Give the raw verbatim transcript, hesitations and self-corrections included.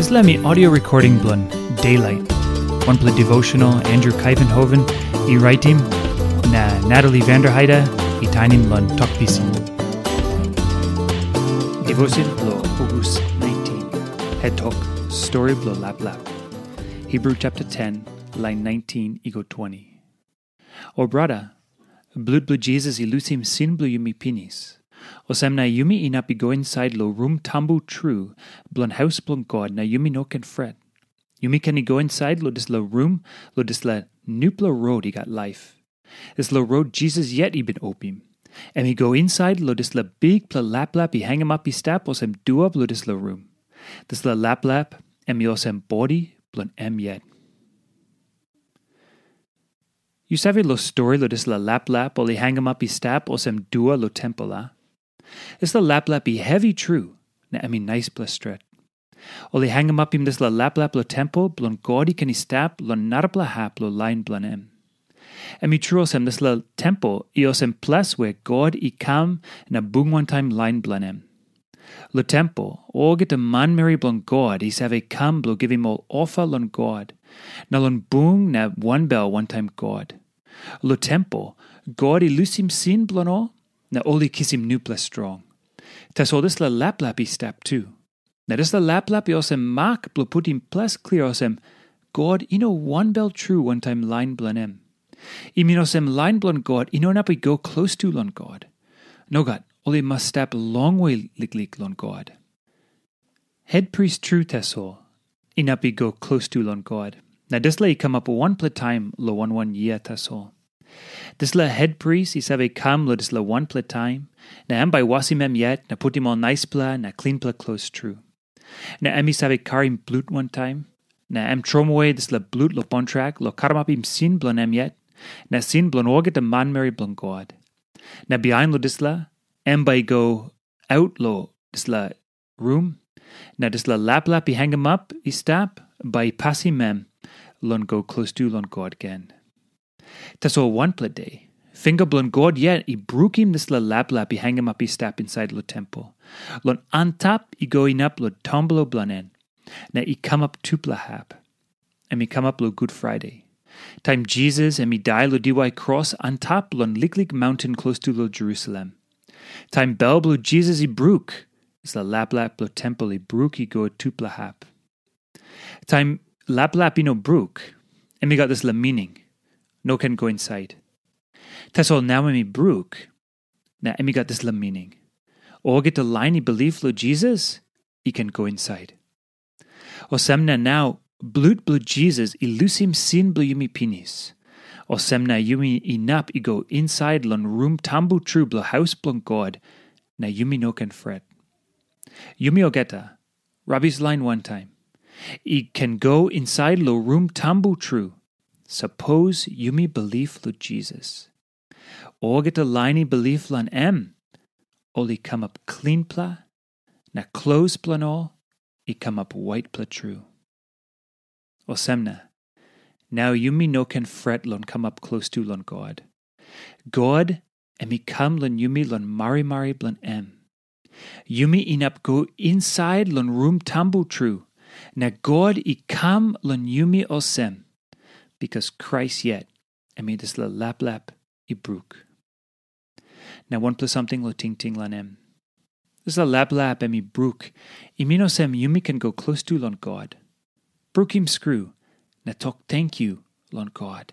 Dispela mi audio recording bilong Daylight, wanpela devotional Andrew Kaivenhoven i raitim, na Natalie Vanderheide i tainim long Tok Pisin. Devotion bilong August nineteen. Het tok, stori bilong laplap. Hebrew chapter ten, lain nineteen i go twenty. O brata, blut bilong Jisas i lusim sin bilong yumi pinis. Olsem na yumi inap i go insait long rum tambu tru bilong haus bilong God, na yumi no ken fret. Yumi ken i go insait long dispela rum, long dispela nupela rot i gat laip. Dispela rot Jisas yet i bin opim. Em i go insait long dispela bikpela laplap i hangamap i stap olsem dua bilong dispela rum. Dispela laplap em i olsem bodi bilong em yet. Yu save long stori long dispela laplap ol i hangamap i stap olsem dua long tempel, a? Dispela laplap i hevi tru, na em i naispela stret. Ol i hangamapim dispela laplap long tempel bilong God i ken i stap long narapela hap long lain bilong em. Em i tru olsem, dispela tempel i olsem ples we God i kam na bung wantaim lain bilong em. Long tempel, olgeta manmeri bilong God i save kam bilong givim ol ofa long God, na long bung na wanbel wantaim God. Long tempel, God i lusim sin bilong ol, na ol i kisim nupela strong. Tasol dispela laplap i stap tu. Na dispela laplap i olsem mak bilong putim ples klia olsem, God i no wanbel tru wantaim lain bilong em. I min olsem lain bilong God i no inap i go klostu long God. Nogat, ol i mas stap longwe liklik long God. Hetpris tru tasol inap i go klostu long God, na dispela i kamap wanpela taim long wan wan yia tasol. Dispela hetpris i save kam long dispela wanpela taim, na em bai wasim em yet na putim ol naispela na klinpela klos tru. Na em i save karim blut wantaim, na em tromoi dispela blut long kontrak long karamapim sin bilong em yet, na sin bilong olgeta manmeri bilong God. Na bihain long dispela, em bai i go aut long dispela rum, na dispela laplap i hangamap i stap, bai i pasim em long go klostu long God gen. Tasol wanpela de, finga bilong God yet i brukim dispela laplap i hangamap i stap insait long tempel, long antap i go inap long tampela bilong en, na i kamap tupela hap. Em i kamap long Gut Friday, taim Jisas em i dai long diwai kros antap long liklik maunten klostu long Jerusalem. Taim bel bilong Jisas i bruk, dispela laplap bilong tempel i bruk i go tupela hap. Taim laplap i no bruk, em i gat dispela mining, no ken go insait. Tasol nau em i bruk, na em i gat dispela mining, olgeta lain i bilip long Jisas i ken go insait. Olsem na nau, blut bilong Jisas i lusim sin bilong yumi pinis. Olsem na yumi inap i go insait long rum tambu tru bilong haus bilong God, na yumi no ken fret. Yumi olgeta, rabis lain wantaim, i ken go insait long rum tambu tru, sapos yumi bilip long Jisas. Olgeta lain i bilip long em, ol i kamap klinpela, na klos bilong ol i kamap waitpela tru. Olsem na, nau yumi no ken fret long kamap klostu long God. God em i kam long yumi long marimari bilong em. Yumi inap go insait long rum tambu tru, na God i kam long yumi olsem, bikas Krais yet em i dispela laplap i bruk. Na wanpela samting long tingting long em. Dispela laplap em i bruk, i min olsem yumi ken go klostu long God. Brukim skru, na tok tenkyu long God.